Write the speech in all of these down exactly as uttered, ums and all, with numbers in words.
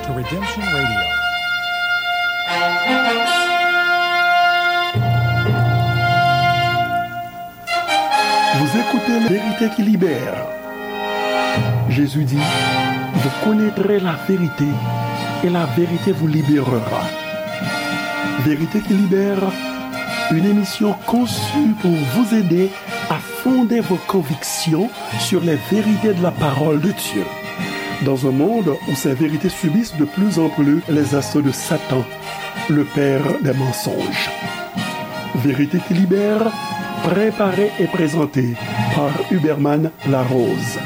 To Redemption Radio. Vous écoutez Vérité qui libère. Jésus dit, vous connaîtrez la vérité et la vérité vous libérera. Vérité qui libère, une émission conçue pour vous aider à fonder vos convictions sur les vérités de la parole de Dieu. Dans un monde où ces vérités subissent de plus en plus les assauts de Satan, le père des mensonges. Vérité qui libère, préparée et présentée par Huberman Larose.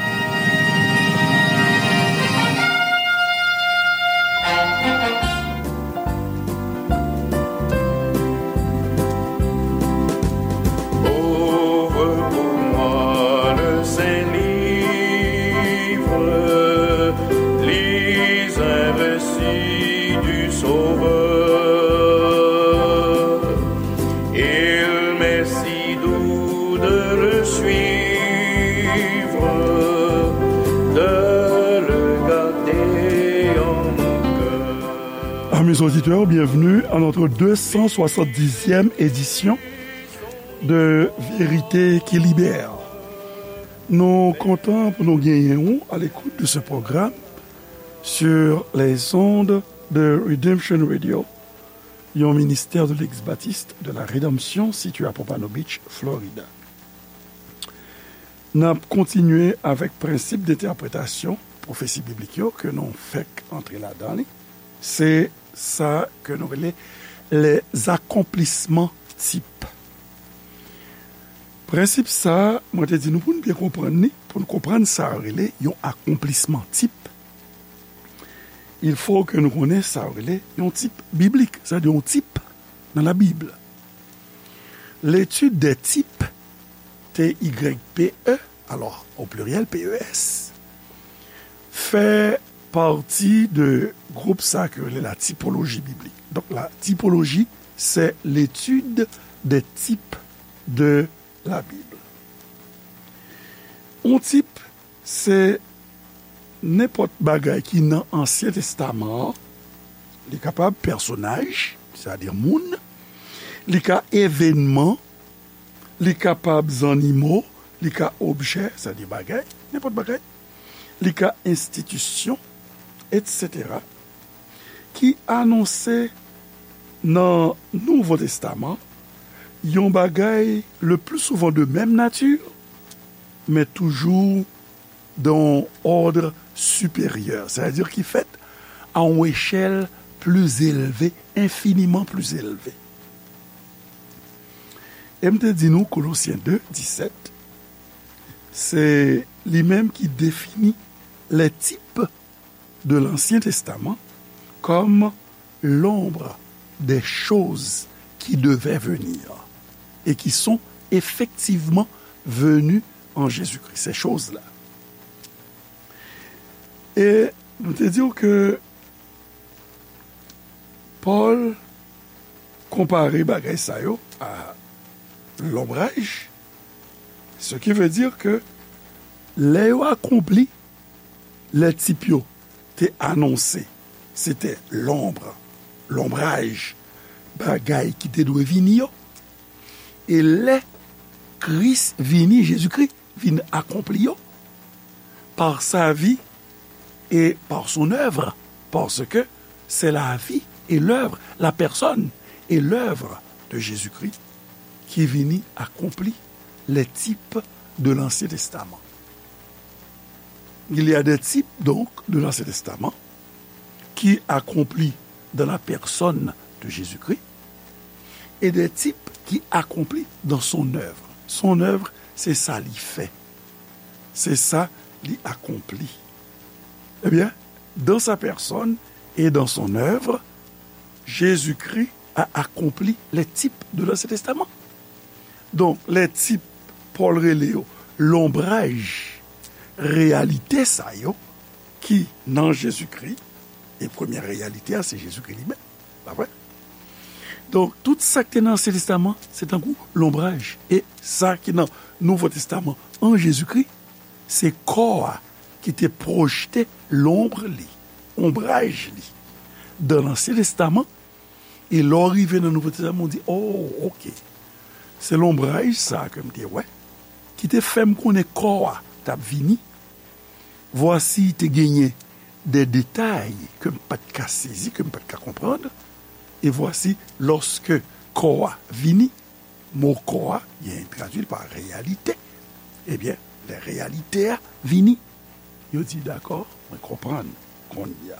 Ouvre pour moi le Saint Livre, lis un récit du Sauveur. Il m'est si doux de le suivre, de le garder en mon cœur. Amis auditeurs, bienvenue à notre deux cent soixante-dixième édition de Vérité qui Libère. Nou kontan pou nou genyen ou à l'écoute de ce programme sur les ondes de Redemption Radio, yon ministè de l'Ex-Baptiste de la Rédemption situé à Pompano Beach, Florida. N ap kontinye avèk prensip de entèpretasyon pwofesi biblik yo ke nou fèk antre ladan li. Se sa ke nou rele les accomplissements types. Prensip sa, mwen te di nou pou n byen konprann li, pou n konprann sa yo rele yon akonplisman tip, il faut que nou konnen sa yo rele yon tip biblik, sa vle di yon tip nan Labib. L'étude des types, T Y P E, alors au pluriel P E S, fè pati de gwoup sa ke yo rele la typologie biblique. Donc la typologie, c'est l'étude des types de la Bible. Yon tip, se nenpòt bagay ki nan Ansyen Testaman an. Li kapab pèsonaj, sètadi moun, li ka evènman, li kapab zannimo, li ka objè, sètadi bagay, nenpòt bagay, li ka enstitisyon, etsetera, ki anonse nan Nouvo Testaman yon bagay le plus souvent de même nature, men toujou dans un ordre supérieur, c'est-à-dire ki fèt à une échelle plus élevée, infiniment plus élevée. E m te di nou, Kolosyen de, disèt, se li menm ki defini les types de l'Ancien Testament comme l'ombre des choses qui devaient venir et qui sont effectivement venues en Jésus-Christ, ces choses-là. E nou te di w ke Pòl konpare bagay sa yo a lonbraj, ce qui veut dire que lè yo akonpli, lè tip yo te anonse, se te lonbre, lonbraj, bagay ki te dwe vini yo. E lè Kris vini, Jezikri vin akonpli yo, par sa vie et par son œuvre, parce que c'est la vie et l'œuvre, la personne et l'œuvre de Jésus-Christ qui vini akonpli les types de l'Ancien Testament. Il y a des types, donc, de l'Ancien Testament qui accomplit dans la personne de Jésus-Christ et des types qui accomplit dans son œuvre. Son œuvre, c'est ça li fait. C'est ça li accomplit. Eh bien, dans sa personne et dans son œuvre, Jésus-Christ a accompli les types de l'Ancien Testament. Donk, lè tip Pòl rele yo lonbraj reyalite sa yo ki nan Jezikri, e premyè reyalite a se Jezikri li menm, pa vre? Donk, tout sa k te nan Ansyen Testaman, se tankou lonbraj. E sa ki nan Nouvo Testaman an Jezikri, se kò a ki te pwojte lonb li. onbraj li dan Ansyen Testaman, e lè w rive nan Nouvo Testaman, w di, "Oh, oke. Se lonbraj sa a ke m te wè, ki te fè m konnen kò a t ap vini. Vwasi, te genyen de detay ke m pa t ka sezi, ke m pa t ka konprann. E vwasi, lòske kò a vini," mo kò a, gen tradui l pa reyalite. Ebyen, lè reyalite a vini, yo di, "Dakò, mwen konprann kounye a."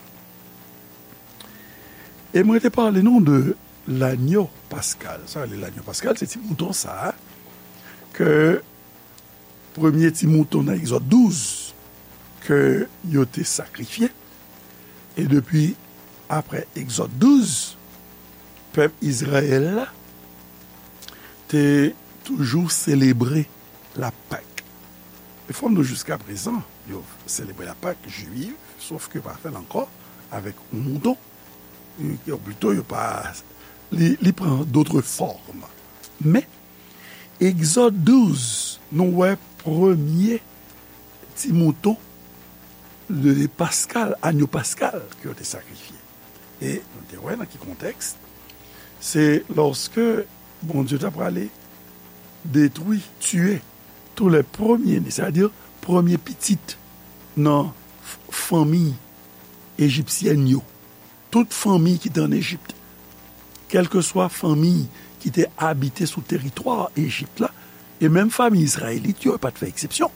E mwen te pale nou de lanyo paskal. Sa rele lanyo paskal, se ti mouton sa a ke premye ti mouton nan Egzòd douz ke yo te sakrifye. E depi apre Egzòd douz, pèp Izrayèl la te toujou selebre la Pak. E fò m di w, jiskaprezan, yo selebre la Pak jwiv, sof ke yo pa fè l ankò avèk yon mouton. Yo, yo plito, yo pa, li, li pran dòt fòm. Men, Egzòd douz, nou wè premye ti mouton de paskal, anyo paskal ke yo te sakrifye. E nou te wè nan ki kontèks, se lòske Bondye ta prale detwi, tiye tou lè premye ne, sètadi premye pitit nan f-, fanmi ejipsyèn yo. Tout fanmi ki te ann Ejip, kèlkeswa fanmi ki te abite sou teritwa Ejip la, e menm fanmi izrayelit yo, yo pa t fè eksepsyon.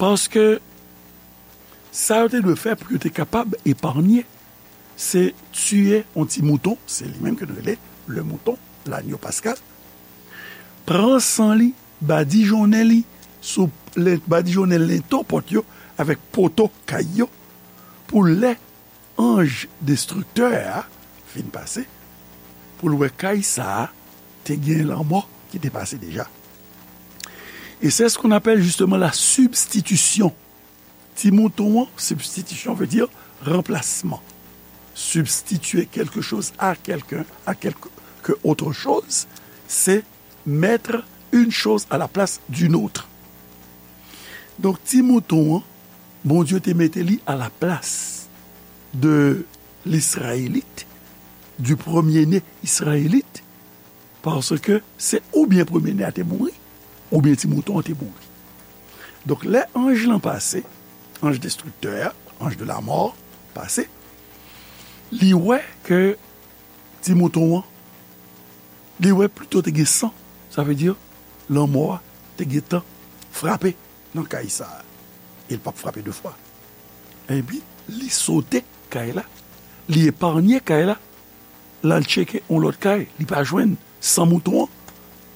Paske sa yo te dwe fè pou yo te kapab epanye, se tiye yon ti mouton, se li menm ke nou rele le mouton, lanyo paskal, pran san li, badijonnen li sou len-, badijonnen lento pòt yo avèk poto kay yo, pou lè anj destriktè a fin pase, pou l wè kay sa a te gen lanmò ki te pase deja. Et c'est ce qu'on appelle justement la substitution. Ti mouton an, substitution veut dire remplacement. Substituer quelque chose à quelqu'un, à quelque autre chose, c'est mettre une chose à la place d'une autre. Donk, ti mouton an, Bondye te mete li à la place de l'Israélite, du premier-né israélite, paske se oubyen premye ne a te mouri, oubyen ti mouton an te mouri. Donk, lè anj lan pase, anj destriktè a, anj de la mò, pase, li wè ke ti mouton an, li wè plito te gen san, sa vle di lanmò a te gentan frape nan kay sa a. E l p ap frape de fwa. Epi, li sote kay la, li epanye kay la, l al tcheke yon lòt kay, li pa jwenn san mouton an,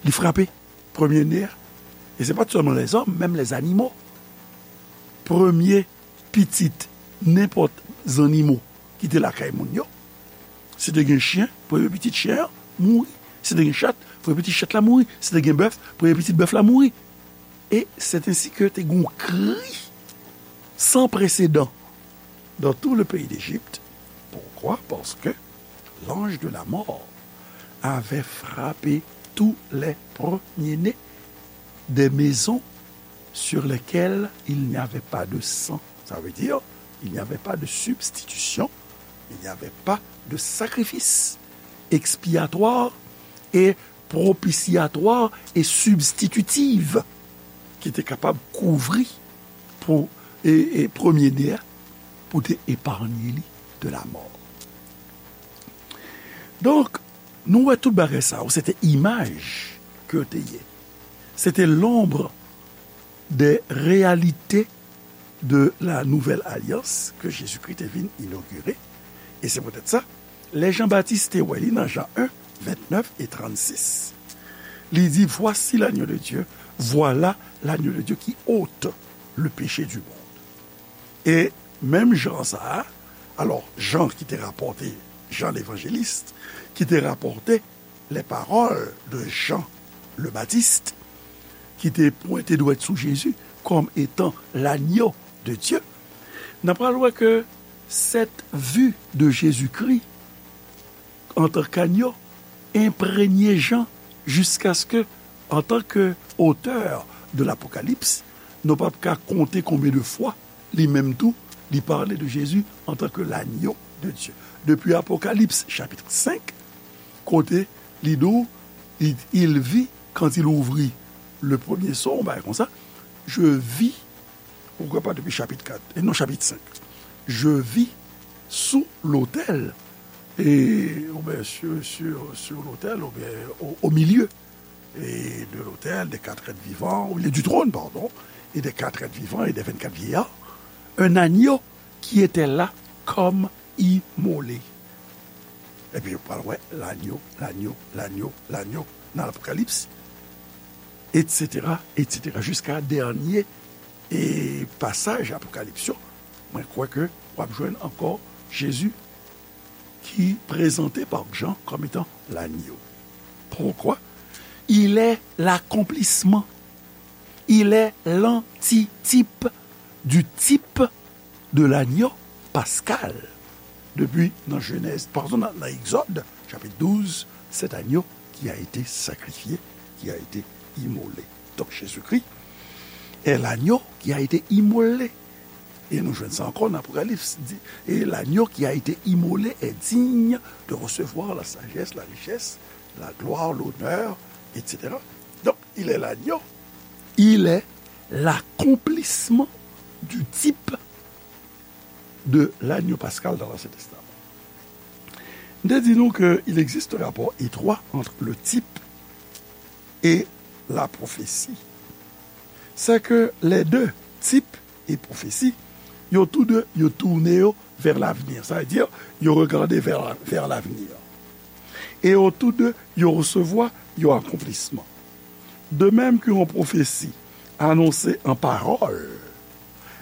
li frape premye ne a. E se pa t sèlman lèzòm, menm lèzanimo. Premye pitit nenpòt zannimo ki te lakay moun yo, si te gen chen, premye pitit chen an mouri. Si te gen chat, premye pitit chat la mouri. Si te gen bèf, premye pitit bèf la mouri. Et c'est ainsi que te gen yon kri san presedan dans tout le pays d'Égypte. Pourquoi? Parce que l'ange de la mort avait frappé tous les premiers-nés des maisons sur lesquelles il n'y avait pas de sang. Ça veut dire, il n'y avait pas de substitution, il n'y avait pas de sacrifice expiatoire et propitiatoire et substitutive ki te kapab kouvri pou e, e premye ne a, pou te epanye li de la mò. Donk, nou wè tout bagay sa yo, se te imaj ke yo te ye. Se te l'ombre des réalités de la nouvelle alliance que Jésus-Christ te vin inogire. E se poutèt sa, lè Jan Batis te wè li nan Jan en, vennèf e trannsis, li di, Voici l'agneau de Dieu, voilà l'agneau de Dieu qui ôte le péché du monde. E menm Jan sa a, alò, Jan ki te rapòte, Jan levanjelis, ki te rapòte les paroles de Jean le Baptiste, ki te pwente dwèt sou Jezi kòm etan l'agneau de Dieu, n ap pral wè ke cette vue de Jésus-Christ en tant qu'agneau enprègne Jan jiskaske, en tant que auteur de l'Apocalypse, nou p ap ka konte konbyen de fwa li menm tou Li pale de Jezi antanke l'agneau de Dieu. Depi Apokalips chapit senk, kote li di w, il, il vit, quand il ouvrit le premier sceau, on bagay konsa, je vis, ou kwè pa depi chapit kat, e non chapit senk, je vis sous l'autel, e, oubyen sur, sur, sur l'autel, oubyen au, au milieu, et de l'autel, des quatre êtres vivants, au milieu du trône, pardon, et des quatre êtres vivants et des vingt-quatre vieillards, un agneau qui était là comme immolé. Epi ou pral wè l'agneau, l'agneau, l'agneau, l'agneau nan Apokalips, et cetera, et cetera, jiska dènye e pasaj Apokalips yo. Mwen kwè ke w ap jwenn ankò Jezi ki prezante pa Jan kòm etan l'agneau. Pourquoi? Il est l'accomplissement. Il est l'antitype du type de l'agneau pascal. Depi nan Jenèz, pardon, nan, nan Egzòd, chapit douz, cet agneau qui a été sacrifié, qui a été immolé. Donc Jésus-Christ est l'agneau qui a été immolé. E nou jwenn sa ankò nan Apokalips. Di, et l'agneau qui a été immolé est digne de recevoir la sagesse, la richesse, la gloire, l'honneur, et cetera. Donc, il est l'agneau. Il est l'accomplissement du type de l'agneau pascal dans l'Ancien Testament. M te di nou ke il existe un rapport étroit entre le type et la prophétie. C'est que les deux, type et prophétie, yo tou de, yo toune yo vers l'avenir. Ça veut dire, yo regade vers, vers l'avenir. E yo tou de, yo resevwa yon akonplisman. De même qu'une prophétie annonce en parole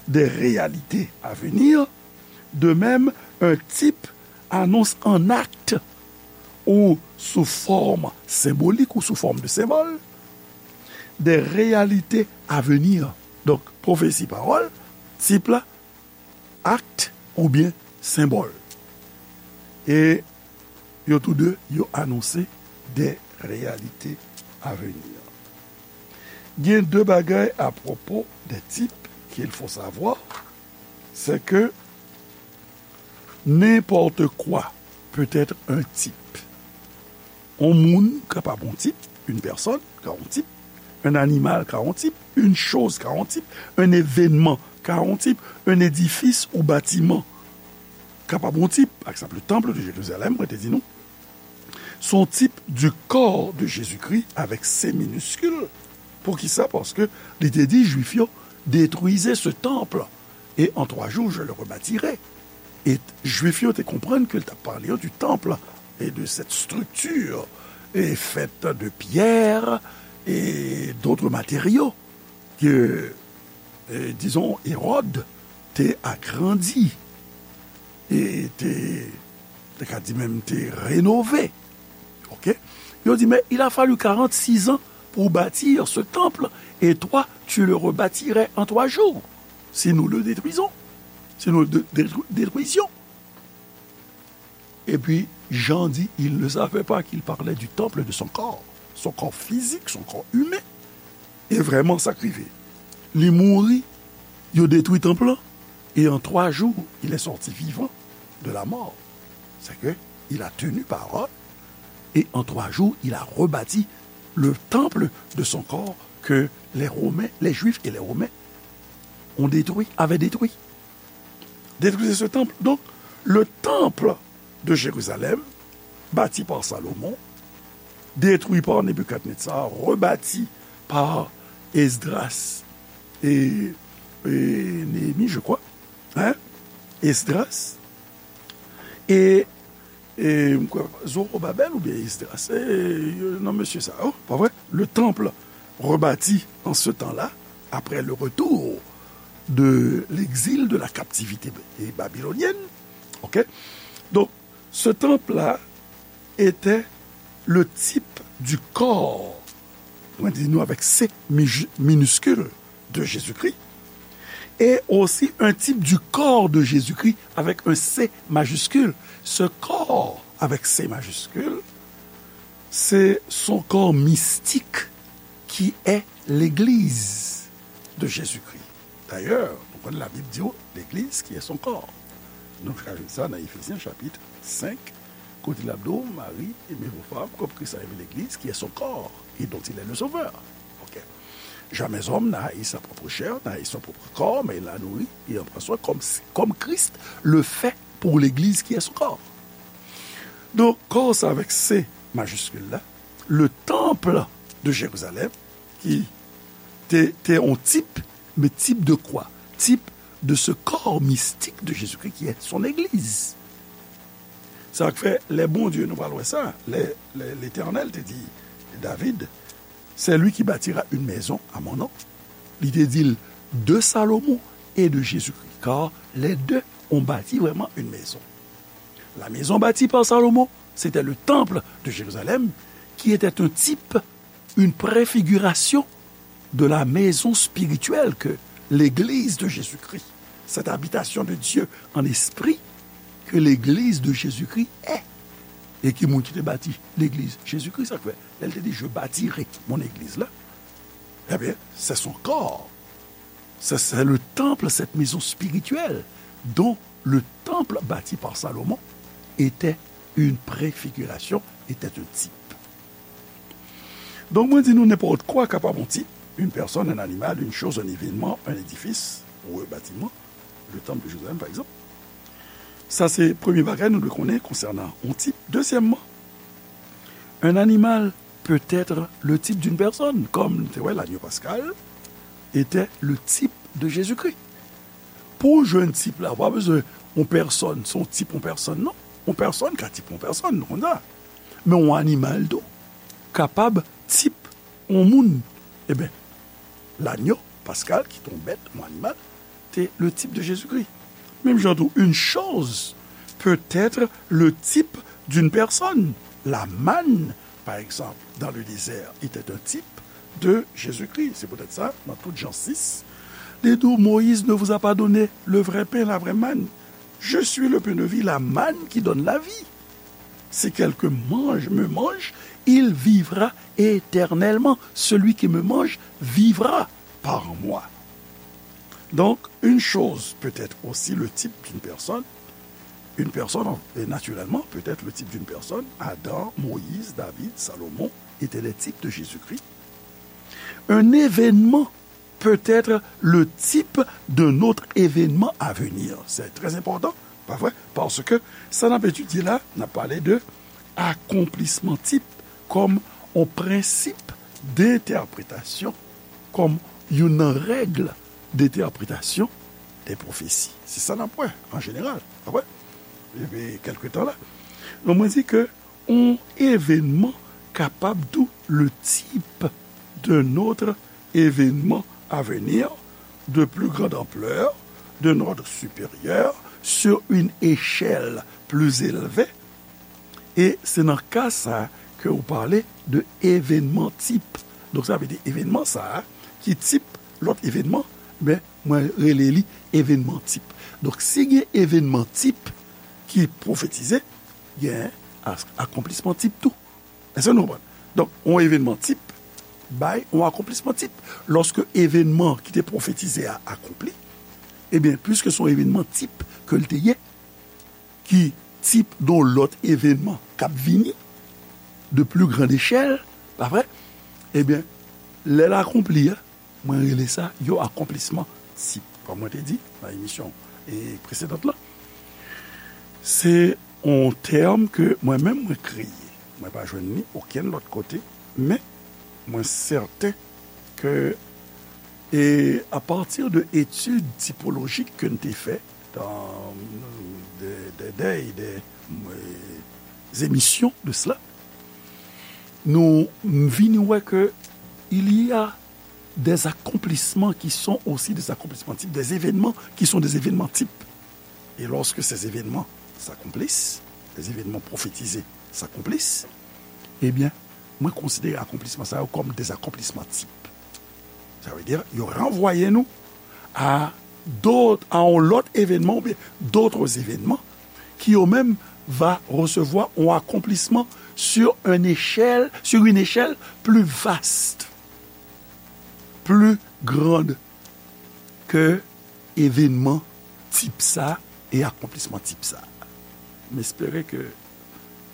des réalités à venir, de même, un type annonce en acte ou sous forme symbolique ou sous forme de symbole des réalités à venir. Donk, pwofesi, pawòl, tip la, akt oubyen senbòl. E yo tou de, yo anonse des réalités à venir. Gen de bagay à propos des types qu'il faut savoir, c'est que n'importe quoi peut être un type. On moun kapab on tip, une personne ka on tip, un animal ka on tip, une chose ka on tip, un événement ka on tip, un édifice ou bâtiment kapab on tip. Pa egzanp, le temple de Jérusalem, mwen te di nou, son type du corps de Jésus-Christ avec C minuscule. Poukisa? Paske li te di Jwif yo, détruisez ce temple et en trois jours je le rebâtirai. E Jwif yo te konprann ke l t ap pale yo du temple et de cette structure et faite de pierre et d'autres matériaux que, eh, disons, Hérode te agrandi e te, te ka di menm te renove. Ok? Yo di, mais il a fallu quarante-six ans pour bâtir ce temple, et toi, tu le rebâtirais en trois jours, si nous le détruisons, si nous le dé-, détru-, détruisions. Et puis, Jean dit, il ne savait pas qu'il parlait du temple de son corps, son corps physique, son corps humain. E vrèman, sa k rive. Li mouri, yo detwi tanp lan, et en trois jours, il est sorti vivant de la mort. C'est que il a tenu parole, et en trois jours, il a rebâti le temple de son corps que les Romains, les Juifs et les Romains ont détruit, avaient détruit. Détruisez ce temple. Donc, le temple de Jérusalem, bâti par Salomon, détruit par Nebuchadnezzar, rebâti par Esdras et, et Néhémie, je crois. Hein? Esdras et, et Zorobabel oubyen Esdras, se, euh, non, mesye sa, oh, pa vre? Le temple rebâti en ce temps-là, après le retour de l'exil, de la captivité babylonienne. Ok? Donc, ce temple-là était le type du corps, mwen di nou avec C miju-, minuscule, de Jésus-Christ, et aussi un type du corps de Jésus-Christ avec un C majuscule. Ce corps avec C majuscule, c'est son corps mystique qui est l'Église de Jésus-Christ. D'ailleurs, nou Konn la Bib di w, l'église qui est son corps. Nou ka jwenn sa nan Efezyen chapit senk, kote l ap di w, Mari, aimez vos femmes, comme Christ a aimé l'église, qui est son corps, et dont il est le sauveur. Ok. Jamais homme n'a haï sa propre chair, n'a haï son propre corps, mais il l'a nourri et en prend soin comme, comme Christ le fait pour l'église qui est son corps. Donk, kò sa avèk C majiskil la, le temple de Jérusalem, ki te, te yon tip, mais type de quoi? Type de ce corps mystique de Jésus-Christ qui est son église. Sa k fè, lè Bondye, nou pral wè sa, lè, lè Letènèl te di David, c'est lui qui bâtira une maison à mon nom. Li te di l de Salomon et de Jésus-Christ, car les deux ont bâti vraiment une maison. La maison bâtie par Salomon, c'était le temple de Jérusalem, qui était un type, une préfiguration de la maison spirituelle que l'Église de Jésus-Christ, cette habitation de Dieu en esprit que l'Église de Jésus-Christ est. E ki moun ki te bati legliz Jezikri, sa k fè, lè l te di, je bâtirai mon église la, ebyen, c'est son corps. C'est, c'est le temple, cette maison spirituelle dont le temple bâti par Salomon était une préfiguration, était un type. Donk, mwen di nou, nenpòt kwa kapab yon tip, une personne, un animal, une chose, un événement, un édifice, ou un bâtiment, le temple de Jérusalem, par exemple. Sa se premye bagay nou dwe konnen konsènan yon tip. Dezyèmman, un animal peut être le type d'une personne, comme nou te wè, l'agneau pascal était le type de Jésus-Christ. Pou w jwenn tip la, ou pa bezwen yon pèsòn, se yon tip yon pèsòn, non. Yon pèsòn ka tip yon pèsòn, nou konn sa. Men yon animal tou kapab tip yon moun. Ebyen, l'agneau pascal, ki te yon bèt, yon animal, te le type de Jésus-Christ. Menm jan tou, une chose peut être le type d'une personne. La manne, par exemple, dans le désert, était un type de Jésus-Christ. C'est peut-être ça, dans tout Jean six, li di w, Moïse ne vous a pas donné le vrai pain, la vraie manne. Je suis le pain de vie, la manne qui donne la vie. Si quelqu'un mange, me mange, il vivra éternellement. Celui qui me mange vivra par moi. Donc, une chose peut être aussi le type d'une personne. Une personne, et naturellement, peut être le type d'une personne. Adam, Moïse, David, Salomon étaient les types de Jésus-Christ. Un événement peut être le type d'un autre événement à venir. C'est très important, pa vre? Paske sa n ap etidye la, n ap pale de akonplisman tip kòm yon prensip de entèpretasyon, kòm youn nan règ de entèpretasyon de pwofesi. Se sa n ap wè, an jeneral. Apre, epi kèlke tan la. Donk, mwen di ke yon evenman kapab tou le type d'un autre événement à venir de plus grande ampleur, d'un ordre supérieur, sur une échelle plus élevée. E se nan ka sa ke ou pale de evenman tip. Donk, sa vle di evenman sa a ki tip lòt evenman, men mwen rele li evenman tip. Donk, si gen evenman tip ki pwofetize, gen as-, akonplisman tip tou. Èske nou konprann? Donk, yon evenman tip bay yon akonplisman tip. Lòske evenman ki te pwofetize a akonpli, ebyen, piske se yon evenman tip ke l te ye, ki tip de yon lòt evenman k ap vini, de plus grande échelle, pa vre? Ebyen, lè l akonpli a, mwen rele sa yon akonplisman tip. Kòm mwen te di nan emisyon, e, presedant lan, se yon tèm ke mwen menm mwen kreye. Mwen pa jwenn li okenn lòt kote, men mwen sèten ke, e, apati de etid tipolojik ke n te fè, dans des, des, des, des, euh, émissions de cela, nou vini wè ke il y a des accomplissements qui sont aussi des accomplissements types, des événements qui sont des événements types. Et lorsque ces événements s'accomplissent, les événements prophétisés s'accomplissent, ebyen, mwen konsidere akonplisman sa yo kòm des accomplissements types. Sa vle di, yo ranvwaye nou a dòt, a yon lòt evenman oubyen d'autres événements qui eux-mêmes va recevoir un accomplissement sur une échelle, sur une échelle plus vaste, plus grande que Evenman tip sa e akonplisman tip sa. M espere ke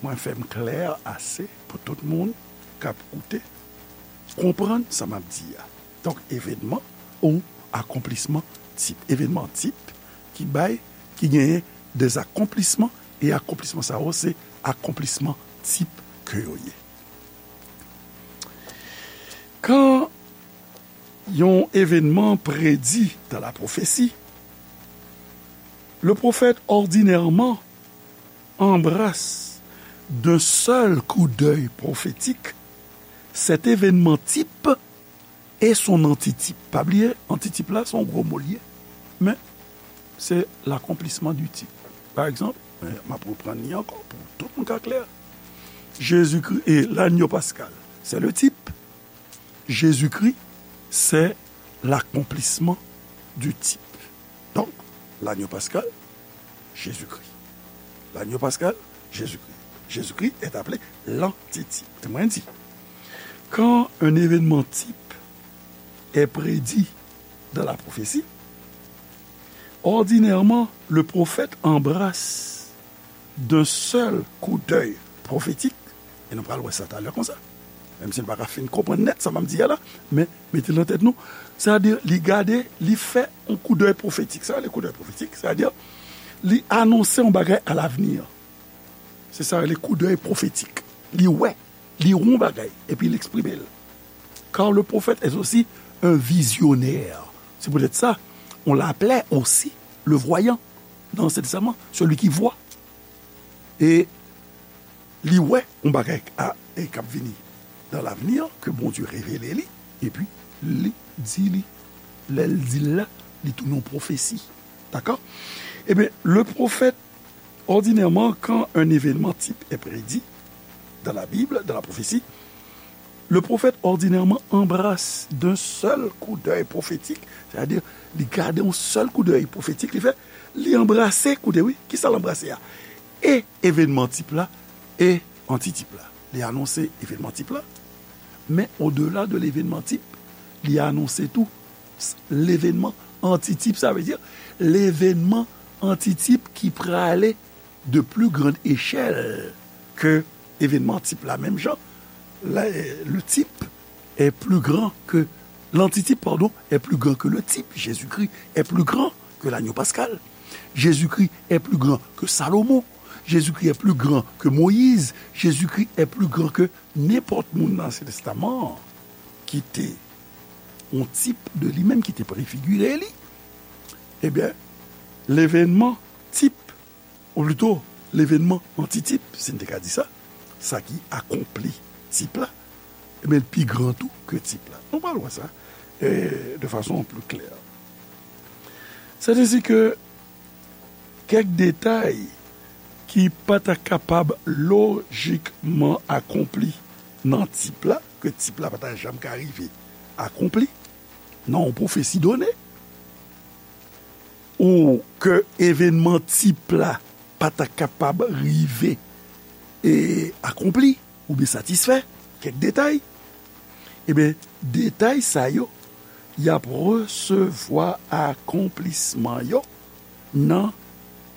mwen fè m klè ase pou tout moun k ap koute konprann sa m ap di a. Donk, evenman ou akonplisman tip. Evenman tip ki bay, ki genyen de akonplisman, e akonplisman sa yo se akonplisman tip ke yo ye. Kan yon evenman predi dan la pwofesi, le prophète ordinairement embrasse d'un seul coup d'œil prophétique cet événement type et son antitype. Pa bliye, antitype la, se yon gwo mo l ye. Men, se l'accomplissement du type. Pa egzanp, m ap reprann li ankò pou tout moun ka klè. Jezikri e lanyo paskal, se le type. Jezikri, se l'accomplissement du type. Donk, lanyo paskal, Jezikri. Lanyo paskal, Jezikri. Jezikri est appelé l'antitype. Mwen di, quand un événement type est prédit dans la prophétie, ordinairement, le prophète embrasse d'un seul coup d'œil prophétique, e nou pral wè sa talè konsa, menm si nou pa ka fin konprann nèt sa m ap di a la, men mete l nan tèt nou, sètadi li gade, li fè yon coup d'œil prophétique. Sa rele coup d'œil prophétique, sètadi li anonse yon bagay à l'avenir. Se sa rele coup d'œil prophétique. Li wè, li wè yon bagay, epi li eksprime l. Car le prophète est aussi un visionnaire. C'est peut-être ça, on l'appelait aussi le voyant dans l'Ancien Testament, celui qui voit. E li wè yon bagay k ap vini dans l'avenir, ke Bondye revele li, epi li di li. Lè l di l la, li tounen yon pwofesi. Dakò? Ebyen, le prophète, ordinairement, quand un événement type est prédit dans la Bible, dans la prophétie, le prophète ordinairement embrasse d'un seul coup d'œil prophétique, c'est-à-dire, li gade yon sèl coup d'œil prophétique, li fè, li anbrase, koute wi, kisa l anbrase a? E evenman tip la, e antitype la. Li anonse evenman tip la, men odela de levenman tip, li anonse tou levenman antitype, sa vle di levenman antitype ki prale de plus grande échelle que evenman tip la. Menm jan, le type est plus grand que, l'antitype, pardon, est plus grand que le type. Jésus-Christ est plus grand que l'agneau pascal. Jésus-Christ est plus grand que Salomon. Jésus-Christ est plus grand que Moïse. Jésus-Christ est plus grand que nenpòt moun nan Ansyen Testaman an ki te yon tip de li menm, ki te prefigire li. Ebyen, levenman tip, ou plito, levenman antitip, si n te ka di sa, sa ki akonpli tip la, ebyen, l pi gran tou ke tip la. Nou pral wè sa, e, de fason pli klè. Sètadi ke kèk detay ki pa ta kapab lojikman akonpli nan tip la, ke tip la pa ta janm ka rive akonpli nan yon pwofesi done, ou ke evenman tip la pa ta kapab rive e akonpli oubyen satisfè, kèk detay, ebyen, detay sa yo, y ap resevwa akonplisman yo nan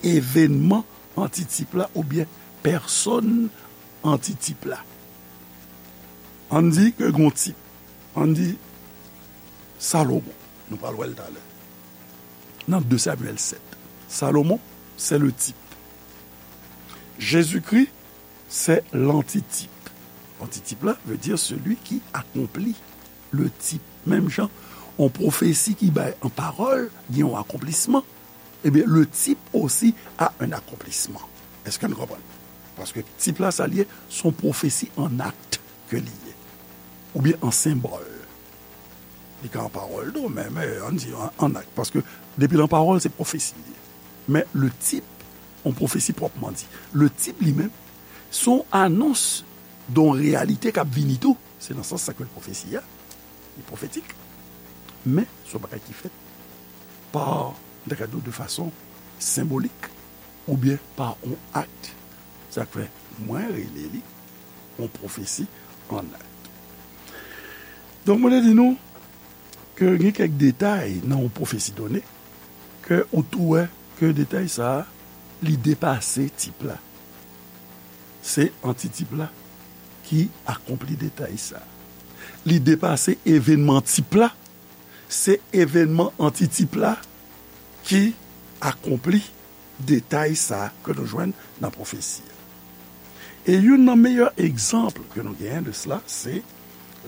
evenman antitip la oubyen pèsòn antitip la. Ann di ke gon tip, ann di Salomon, nou pral wè l talè, nan de Samyèl sèt. Salomon, c'est le type. Jésus-Christ, c'est l'antitype. Antitip la veut dire celui qui accomplit le type. Menm jan, yon pwofesi ki bay an pawòl, gen yon akonplisman, ebyen, le type aussi a un accomplissement. Èske nou konprann? Paske tip la, sa l ye, se yon pwofesi an akt ke li ye. Oubyen an senbòl. Li ka an pawòl tou, men, men, ann di an, an akt. Paske depi l an pawòl, se pwofesi li ye. Men le type, yon pwofesi pwòpman di. Le type li menm, se yon anons de yon reyalite k ap vini tou. Se nan sans sa ke l pwofesi a, li pwofetik. Men, se yon bagay ki fèt pa, m ta ka di w, de fason senbolik, oubyen pa yon akt. Sa k fè mwen rele li yon pwofesi an akt. Donk, mwen te di nou ke gen kèk detay nan yon pwofesi done ke ou tou wè ke detay sa a, li depase tip la. Se antitip la ki akonpli detay sa a. Li depase evènman tip la, se evènman antitip la ki akonpli detay sa a ke nou jwenn nan pwofesi a. E youn nan meyè egzanp ke nou genyen de sela, se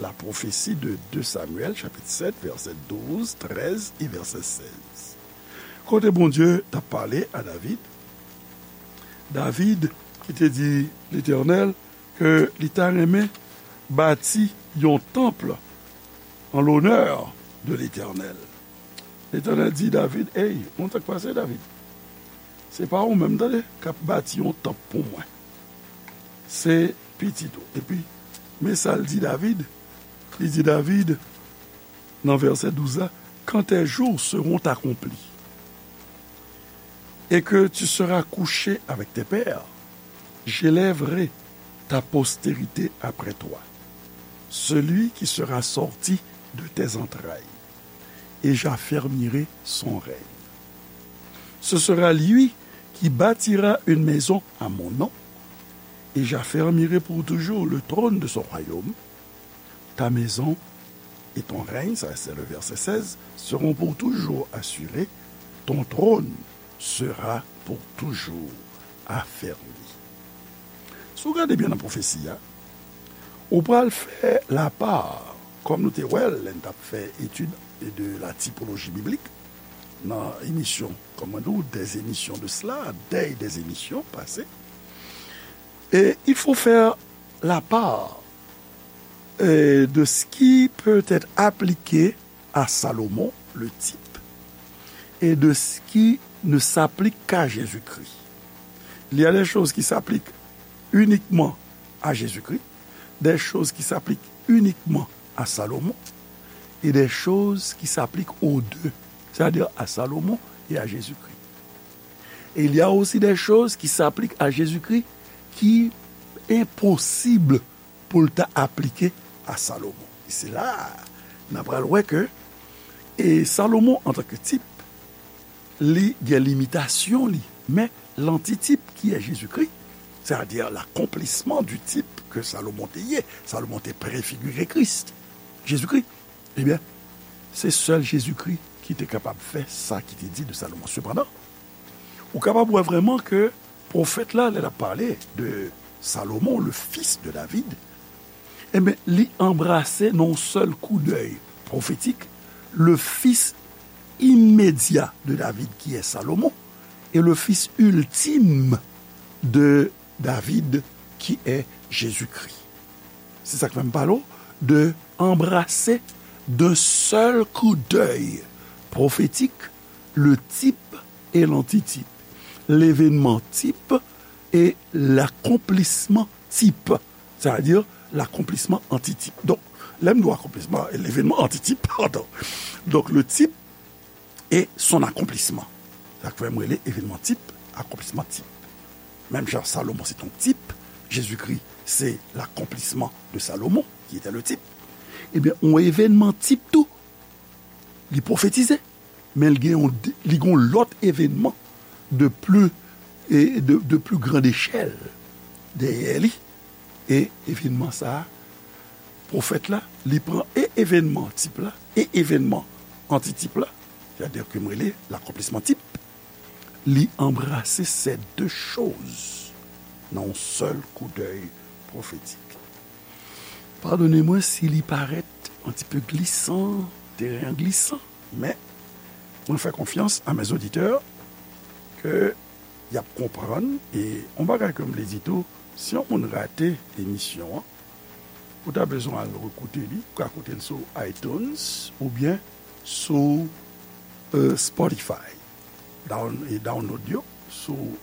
la prophétie de deux Samuel, chapitre sept, verset douze, treize et verset seize. Kote Bondye t ap pale a David, David ki te di Letènèl ke li ta renmen bati yon tanp an lonè de Letènèl. Letènèl di David, "Ey, moun sa k pase, David? Se pa ou menm, tande, k ap bati yon tanp pou mwen. Se pitit ou." Epi, men sa l di David. Li di David, nan vèsè douz la, "Quand tes jours seront accomplis et que tu seras couché avec tes pères, j'élèverai ta postérité après toi, celui qui sera sorti de tes entrailles, et j'affermirai son règne. Ce sera lui qui bâtira une maison à mon nom, et j'affermirai pour toujours le trône de son royaume. Ta maison et ton règne, ça c'est le verset seize, seront pour toujours assurés, ton trône sera pour toujours affermi." Si w gade byen nan pwofesi a, ou pral fè lapa, kòm nou te wè l lè n t ap fè etid de la tipoloji biblik, nan emisyon, kòm mwen di w, des émissions de cela, des, des émissions passées. Et il faut faire la part, euh, de ce qui peut être appliqué à Salomon, le type, et de ce qui ne s'applique qu'à Jésus-Christ. Il y a des choses qui s'appliquent uniquement à Jésus-Christ, des choses qui s'appliquent uniquement à Salomon, et des choses qui s'appliquent aux deux, c'est-à-dire à Salomon et à Jésus-Christ. Et il y a aussi des choses qui s'appliquent à Jésus-Christ ki enposib pou l ta aplike a Salomon. E se la a n a pral wè ke, e Salomon, antanke tip, li gen limitasyon li, men lantitip ki è Jezikri, c'est-à-dire l'accomplissement du type que Salomon te ye, Salomon te prefigire Kris, Jezikri, ebyen, se sèl Jezikri ki te kapab fè sa ki te di de Salomon. Sepandan, ou kapab wè vrèman ke pwofèt la, lè l ap pale de Salomon, le fils de David, ebyen, li anbrase nan yon sèl koudèy pwofetik, le fils immédiat de David, qui est Salomon, et le fils ultime de David, qui est Jésus-Christ. Se sa k fè m pale w de anbrase d'un seul coup d'œil prophétique le type et l'antitype, l'événement type et l'accomplissement type, c'est-à-dire l'accomplissement antitype. Donk, lè m di w akonplisman, l'événement antitype, pardon. Donk, le type et son accomplissement. Sa k fè m rele evènman tip, akonplisman tip. Menm jan Salomon se yon tip, Jezikri se l'accomplissement de Salomon, qui était le type. Ebyen, yon evènman tip tou, li pwofetize, men li gen yon, li gen yon lòt evènman de plus, e de, de plus grande échelle dèyè li. E evènman sa a, pwofèt la, li pran e evènman tip la, e evènman antitip la, c'est-à-dire ke m rele l'accomplissement type, li anbrase ces deux choses nan yon sèl koudèy pwofetik. Padone mwen si li parèt un petit peu glissant, teren an glisan, men mwen fè konfyans à mes auditeurs ke y ap konprann. E yon bagay ke m vle di tou, si yon moun rate emisyon an, ou ta bezwen al rekoute li, ou ka koute l sou iTunes oubyen sou, euh, Spotify. Down-, e download yo sou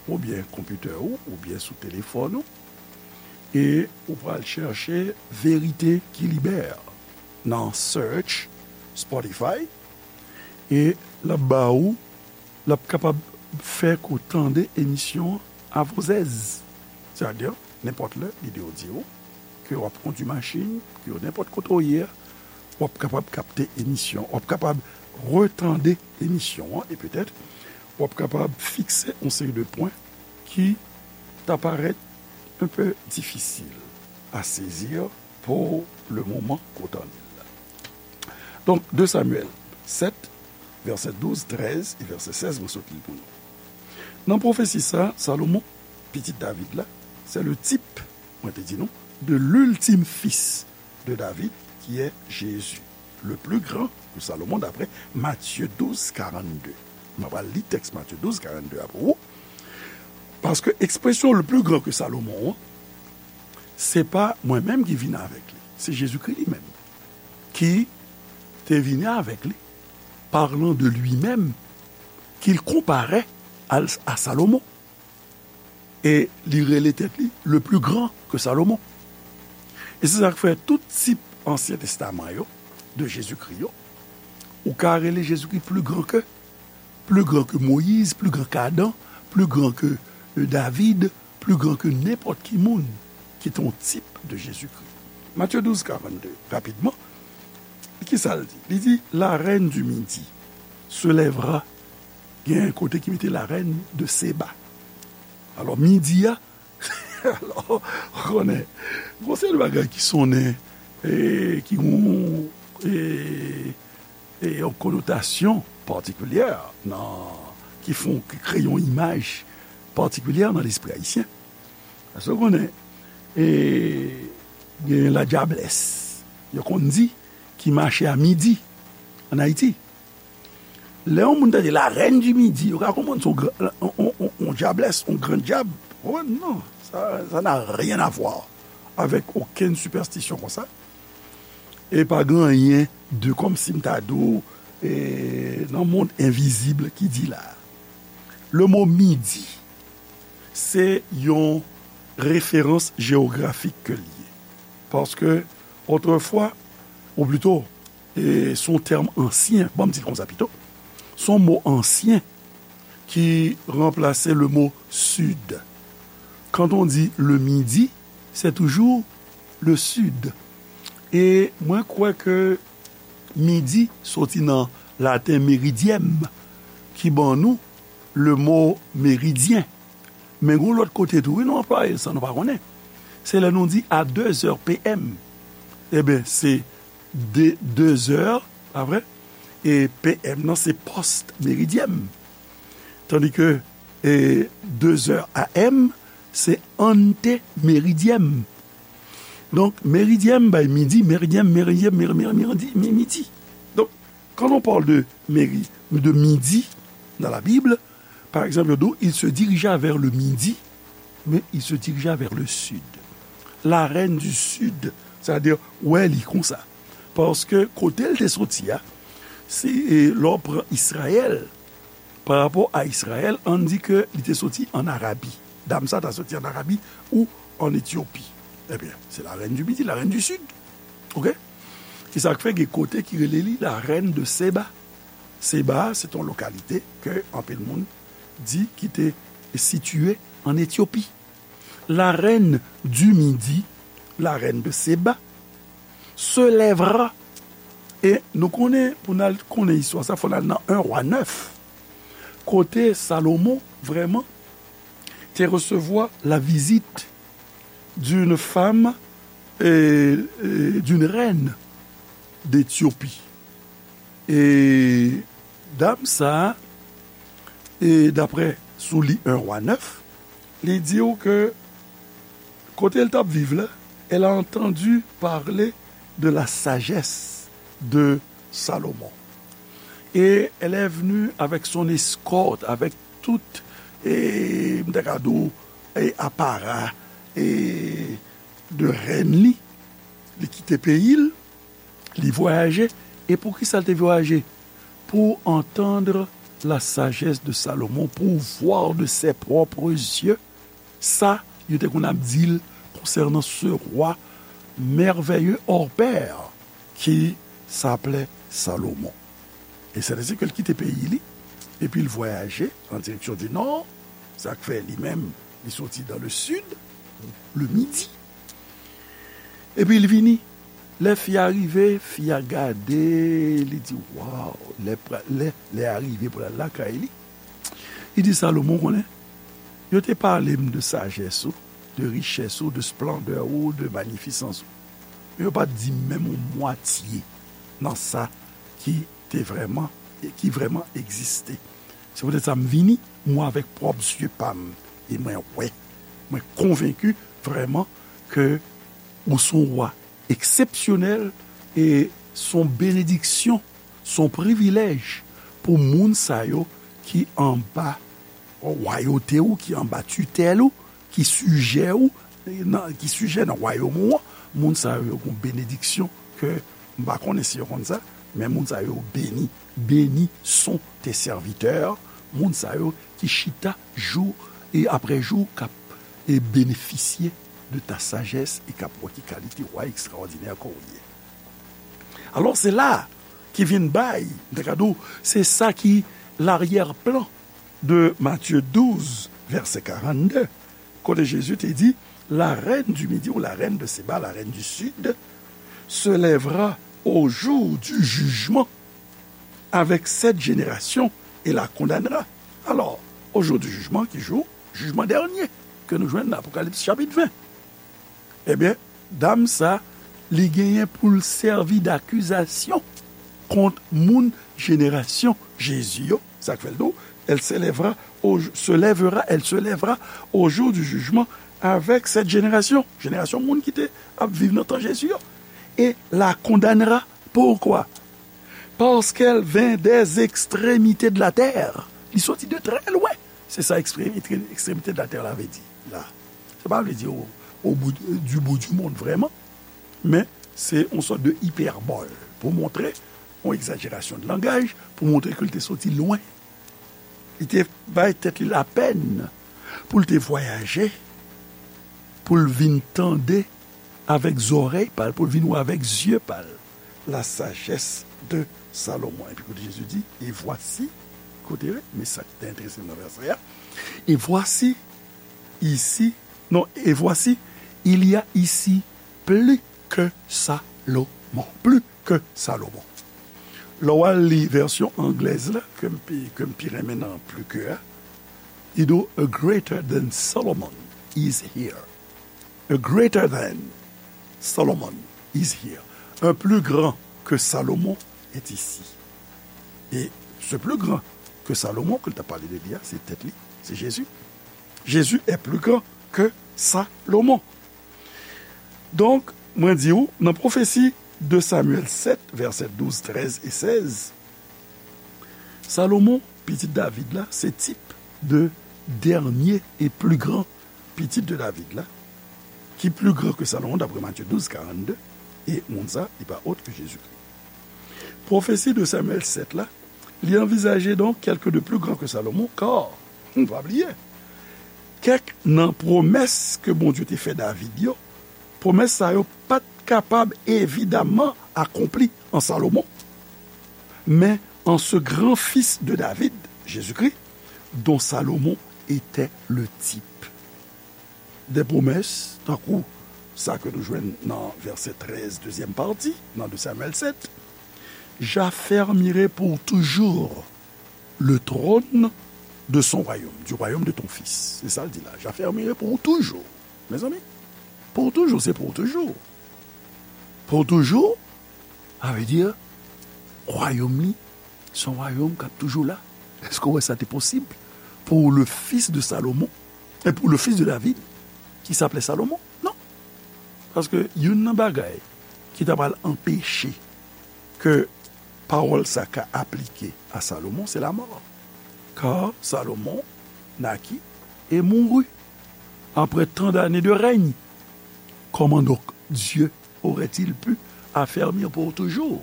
oubyen konpitè ou, oubyen sou telefòn ou. E ou pral chèche Vérité qui libère nan search Spotify. E l ap ba ou, l ap kapab fè ke w tande emisyon an avozèz. Sètadi, nenpòt lè, lide w di w ke w ap kondui machin, ke w nenpòt kote w ye a, w ap kapab kapte emisyon, w ap kapab retande emisyon an e petèt w ap kapab fikse yon seri de pwen ki ta parèt un peu difficile à saisir pour le moment kote an ye la. Donk, de Samyèl sèt, vèsè douz, trèz e vèsè sèz, mwen sot li pou nou. Nan pwofesi sa, Salomon, pitit David la, c'est le type, mwen te di nou, de l'ultime fils de David, qui est Jésus, le plus grand que Salomon, d'après Matthieu douze, quarante-deux. Mwen pral li tèks Matthieu douze, quarante-deux a pou ou. Paske ekspresyon le plus grand que Salomon an, se pa mwen menm ki vini avèk li. Se Jezikri li menm ki te vini avèk li, parlant de lui-même, qu'il comparait à, à Salomon. E li rele tèt li le plus grand que Salomon. E se sa k fè tout tip Ansyen Testaman yo, de Jezikri yo, ou ka rele Jezikri plus grand que, plus grand que Moïse, plus grand qu'Adam, plus grand que, euh, David, plus grand que nenpòt ki moun ki te yon tip de Jezikri. Matthieu douze, quarante-deux, rapidman, ki sa l di? Li di, la reine du midi se lèvera. Gen kote ki mete la reine de Seba. Alò, midi a, alò, ou konnen, gon seri de bagay ki sonnen, e, ki gon, e, e, yon konotasyon patikilyè nan, ki fè, ki kreye yon imaj patikilyè nan lespri ayisyen. Paske ou konnen, e, gen ladyablès, yo konn di, ki mache a midi ann Ayiti. Lè yon moun tande la reine du midi, yo ka konprann se yon gran, yon, yon, yon, yon dyablès, yon gran dyab. Oh non, ça, ça n'a rien à voir avec aucune superstition konsa. E pa gen anyen de, kòmsi m ta di w, e, nan mond envizib ki di la. Le mo midi, se yon referans jewografik ke l ye. Paske, otrefwa, ou plito, e, se yon tèm ansyen, ban m di l konsa pito, se yon mo ansyen ki ranplase le mot sud. Quand on dit le midi, c'est toujours le sud. E mwen kwè ke midi soti nan laten meridiem, ki ban nou le mo meridyen. Men gon lòt kote tou, wi, nou anplwaye l san nou pa konnen. Se lè nou di à deux heures P M. Ebyen, se de, deux heures, pa vre? E P M nan, se post meridiem. Tandi ke, e, deux heures A M, se ante meridiem. Donk, meridiem bay midi, meridiem, meridiem, meri-, meri-, midi, mi-, midi. Donk, quand on parle de meri-, de midi dans la Bible, par exemple, yo di w, il se dirigea vers le midi, mais il se dirigea vers le sud. La reine du sud, c'est-à-dire, wè li konsa. Paske kote l te soti a, si, e, lè w pran Izrayèl, pa rapò a Izrayèl, ann di ke li te soti ann Arabi. Dam sa ta soti ann Arabi ou ann Etyopi. Ebyen, se la reine du midi, la reine du sud. Oke? Se sa k fè gen kote ki rele li la reine de Seba. Seba, se yon lokalite ke anpil moun di ki te sitiye ann Etyopi. La reine du midi, la reine de Seba, se lèvera. E nou konnen, pou n al konnen istwa sa, fò n al nan un Roi neuf, kote Salomon, vrèman, te resevwa la visite d'une femme, e, e, d'une reine d'Éthiopie. E dam sa, e daprè sou li un Roi neuf, li di w ke kote l t ap viv la, elle a entendu parler de la sagesse de Salomon. Et elle est venue avec son escorte, avec tout, e, m ta ka di w, e, apara, e, de rèn li. Li kite peyi l, li vwayaje. E poukisa l te vwayaje? Pour entendre la sagesse de Salomon, pour voir de ses propres yeux sa yo te konn ap di l konsènan ce roi merveilleux hors pair qui s'appelait Salomon. E sètadi ke l kite peyi li, epi l vwayaje an direksyon di nò, sa k fè li menm, li soti dans le sud, le midi, epi l vini Lè fi a rive, fi a gade, li di, waw, lè, pra- lè, lè a rive pou l al lakay li. Li di, Salomon, konnen, yo te pale m de sajès ou, de richès ou, de splandè ou, de manifisans ou. Men yo pa t di m menm yon mwatye nan sa ki te vrèman, ki vrèman egziste. Se poutèt sa m vini, mwen avèk pwòp zye pa m, e mwen wè, mwen konvenki vrèman ke ou se yon wa eksepsyonèl e se yon benediksyon, se yon privilèj pou moun sa yo ki anba wayote ou, ki anba titèl ou, ki sijè ou, nan, ki sijè nan wayòm ou an, moun sa yo, yo gen benediksyon ke m pa konnen si yo konn sa, men moun sa yo beni. Bénis sont tes serviteurs, moun sa yo ki chita jou e apre jou k ap e benefisye de ta sajès e k ap wè ki kalite wa ekstraòdinè ke w ye. Alò, se la ki vin bay, m ta ka di w, se sa ki laryè plan de Matye douz, vèsè karannde, kote Jezi te di, la reine du Midi ou la reine de Séba, la reine du Sud, se lèvera au jour du jugement avec cette génération et la condamnera. Alò, au jour du jugement, ki jou? Jijman dènye, ke nou jwenn nan Apokalips chapit ven. Ebyen, dam sa, li genyen pou l sèvi dakizasyon kont moun jenerasyon Jezi yo. Sa k fè l di w, elle s'élèvera au, se lèvera, elle se lèvera au jour du jugement avec cette génération. Jenerasyon moun ki te ap viv nan tan Jezi yo. Et la condamnera. Pourquoi? Parce qu'elle vint des extrémités de la terre. Li soti de trè lwen. Se sa ekstremite, ekstremite de la terre la vle di la. Sa pa vle di au, au bout, du bout du monde, vrèman. Men, se yon sòt de ipèbòl pou montre, yon egzajerasyon de langaj, pou montre ke l te soti lwen. Li te bay tèt li lapèn pou l te vwayaje, pou l vin tande avèk zòrèy pa l, pou l vin wè avèk zye pa l, la sagesse de Salomon. Epi kote Jezi di, et voici, koute, men sa ki te enterese m nan vèsè a, et voici, ici, non, et voici, il y a ici plus que Salomon. Plus que Salomon. Lè w al li vèsyon anglèz la, ke m pi, ke m pi renmen nan plus que a, li di w, a greater than Solomon is here. A greater than Solomon is here. Un plus grand que Salomon est ici. Et ce plus grand que Salomon, ke l t ap pale de li a, se tèt li, se Jezi. Jésus est plus grand que Salomon. Donk, mwen di w, nan pwofesi de Samyèl sèt, vèsè douz, trèz e sèz, Salomon, pitit David la, se tip de dènye e pli gran pitit de David la, ki pli gran ke Salomon, daprè Matye douz, karannde, e moun sa, li pa ot ke Jezikri. Pwofesi de Samyèl sèt la, li anvizaje donk kèlke de pli gran ke Salomon, kar, n pa bliye, kèk nan pwomès ke Bondye te fè David yo, pwomès sa yo pa t kapab evidaman akonpli an Salomon, men an ce grand fils de David, Jésus-Christ, dont Salomon était le type. De pwomès, tankou sa ke nou jwenn nan vèsè trèz, dezyèm pati, nan de Samyèl sèt, j'affermirai pour toujours le trône de son royaume, du royaume de ton fils. Se sa l di la, j'affermirai pour toujours. Mezanmi, pour toujours, se pour toujours. Pour toujours, sa vle di, wayòm li, se yon wayòm k ap toujou la. Èske w wè sa te posib pour le fils de Salomon, et pour le fils de David, qui s'appelait Salomon? Non. Paske youn nan bagay ki ta pral anpeche ke pawòl sa ka aplike a Salomon, se lamò. Car Salomon naquit et mourut après tant d'années de règne. Comment donc Dieu aurait-il pu affermir pour toujours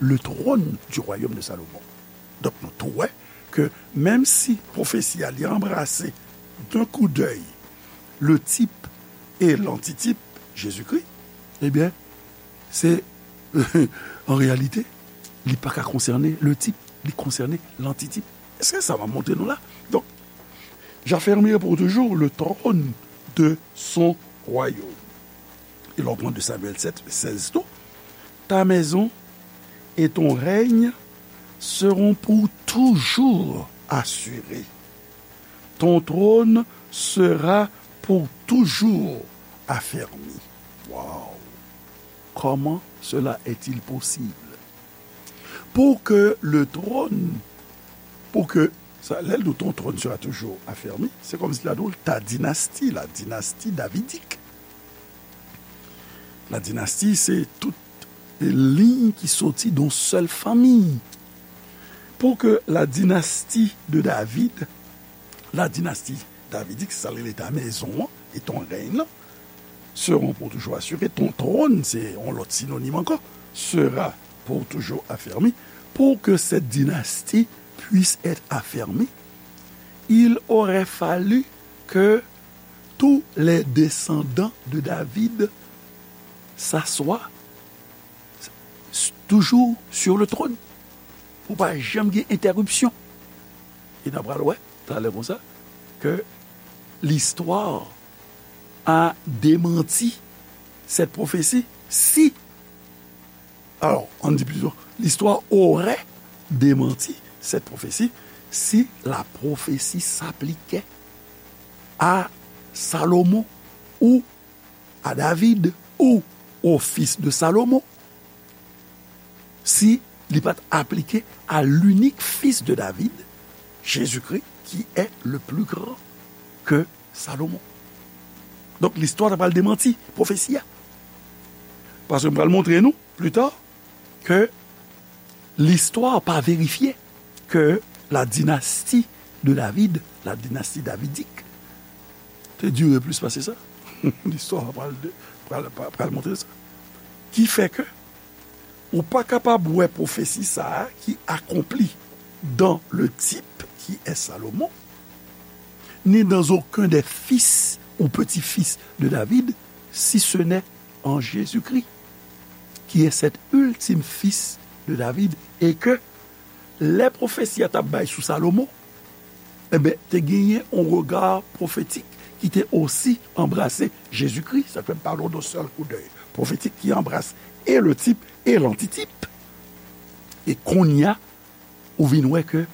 le trône du royaume de Salomon? Donk, nou tou wè ke menm si pwofesi a li anbrase d'un coup d'œil le type et l'antitype, Jésus-Christ, ebyen, se, an reyalite, li pa ka konsène le type, li konsène l'antitype. Èske sa m ap montre nou la? Donk, j'affermirai pour toujours le trône de son royaume. E lè w pran de Samyèl sèt, sèz tou, ta maison et ton règne seront pour toujours assurés. Ton trône sera pour toujours affermi. Wow! Comment cela est-il possible? Pour que le trône, pour que, sa, lè l di w ton trône sera toujours affermi, se kòmsi l ap di w ta dynastie, la dynastie davidique. La dynastie, se tout liy ki soti de yon sèl fanmi. Pour que la dynastie de David, la dynastie davidique, sa l rele ta maison an, et ton règne, seront pour toujours assurés, ton trône, se yon lòt sinonim ankò, sera pour toujours affermi, pour que cette dynastie puisse être affermie, il aurait fallu que tous les descendants de David s'assoient toujours sur le trône. Pou pa janm gen entèripsyon. E n ap pral wè, talè konsa, ke l'histoire a démenti cette prophétie si, alors, on dit plutôt, l'histoire aurait démenti cette prophétie si la prophétie s'appliquait à Salomon ou à David ou au fils de Salomon, si li pa t aplike à l'unique fils de David, Jésus-Christ, qui est le plus grand que Salomon. Donk, listwa ta pral demanti pwofesi a. Paske m pral montre nou, pli ta, ke listwa pa verifye ke la dynastie de David, la dynastie davidique, te dire plis pase sa. Listwa pral, pral, pral montre sa. Ki fè ke ou pa kapab wè pwofesi sa a ki akonpli dans le type qui est Salomon, ni dans aucun des fils ou petits-fils de David, si ce n'est en Jésus-Christ, qui est cet ultime fils de David, et que lè pwofesi a t ap bay sou Salomon, enben, te genyen yon rega pwofetik ki te osi anbrase Jezikri. Sa fè m pale w de sèl koudèy pwofetik ki anbrase e le tip e lantitip. E kounye a, ou vin wè ke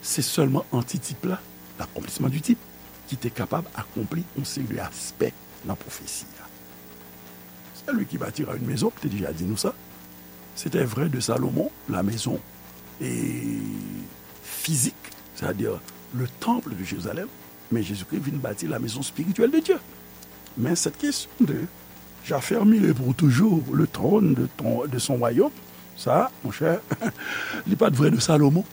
se sèlman antitip la, l'accomplissement du type, ki te kapab akonpli yon seri de aspè nan pwofesi a. Celui qui bâtira une maison, m te deja di nou sa, c'était vrai de Salomon, la maison et physique, c'est-à-dire le temple de Jérusalem, men Jezikri vin bati la maison spirituelle de Dieu. Men cette question de j'affermirai pour toujours le trône de, ton, de son royaume, sa, monchè, li pa t vrè de Salomon,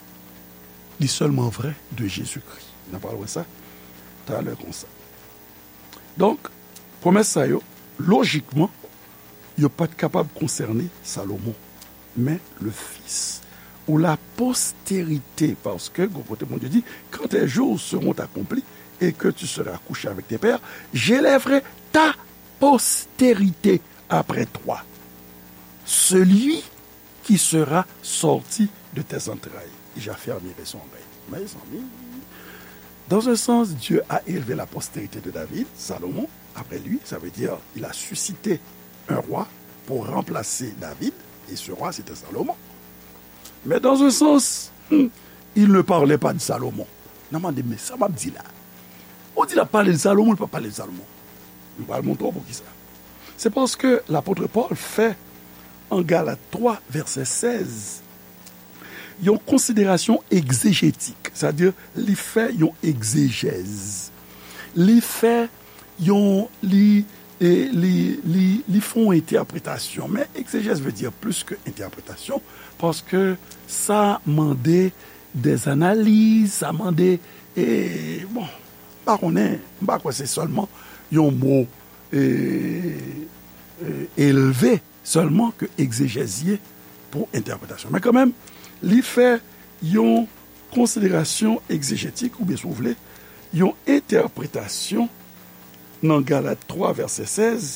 li sèlman vrè de Jezikri. N a pral wè sa talè konsa. Donk, pwomès sa yo, lojikman, yo pa t kapab konsène Salomon, men le fils ou la postérité, paske, gwo kote Bondye di, quand tes jours seront accomplis et que tu seras couché avec tes pères, j'élèverai ta postérité après toi, celui qui sera sorti de tes entrailles, et j'affermirai son règne. Mezanmi, dans un sens, Dieu a élevé la postérité de David, Salomon, après lui, ça veut dire il a suscité un roi pour remplacer David, et ce roi, c'était Salomon. Mais dans un sens, hmm, il ne parlait pas de Salomon. N a mande, men sa m ap di la. Ou di l ap pale de Salomon, li pa pale de Salomon. M pral montre w poukisa. Se paske lapot Pòl fè, an Galat twa, vèsè sèz, yon konsiderasyon egzejetik, sètadi li fè yon egzejèz. Li fè yon, li, e, li, li, li fè yon entèpretasyon. Men egzejèz vle di plis ke entèpretasyon, paske sa mande des analyses, sa mande, e, bon, m pa konnen, m pa kwè se sèlman yon mo, e, e, elve sèlman ke egzejèz ye pou entèpretasyon. Men kanmenm, li fè yon konsiderasyon egzejetik, oubyen si w vle, yon entèpretasyon nan Galat twa, vèsè sèz,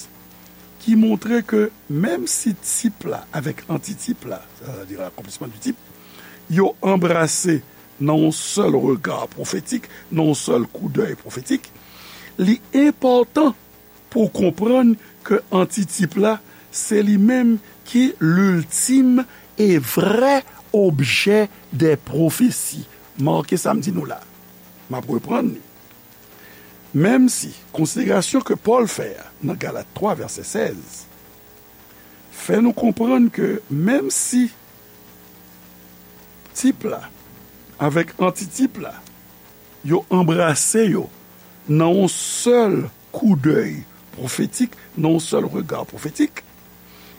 ki montre ke menm si tip la avèk antitip la, c'est-à-dire l'accomplissement du type, yo anbrase nan yon sèl rega pwofetik, nan yon sèl koudèy pwofetik, li enpòtan pou w konprann ke antitip la, Se li menm ki l'ultime et vrai objet des prophéties. Make sa m di nou la. M ap reprann li. Menm si konsiderasyon ke Pòl fè a nan Galat twa vèsè sèz fè nou konprann ke menm si tip la avèk antitip la, yo anbrase yo nan yon sèl koudèy pwofetik, nan yon sèl rega pwofetik,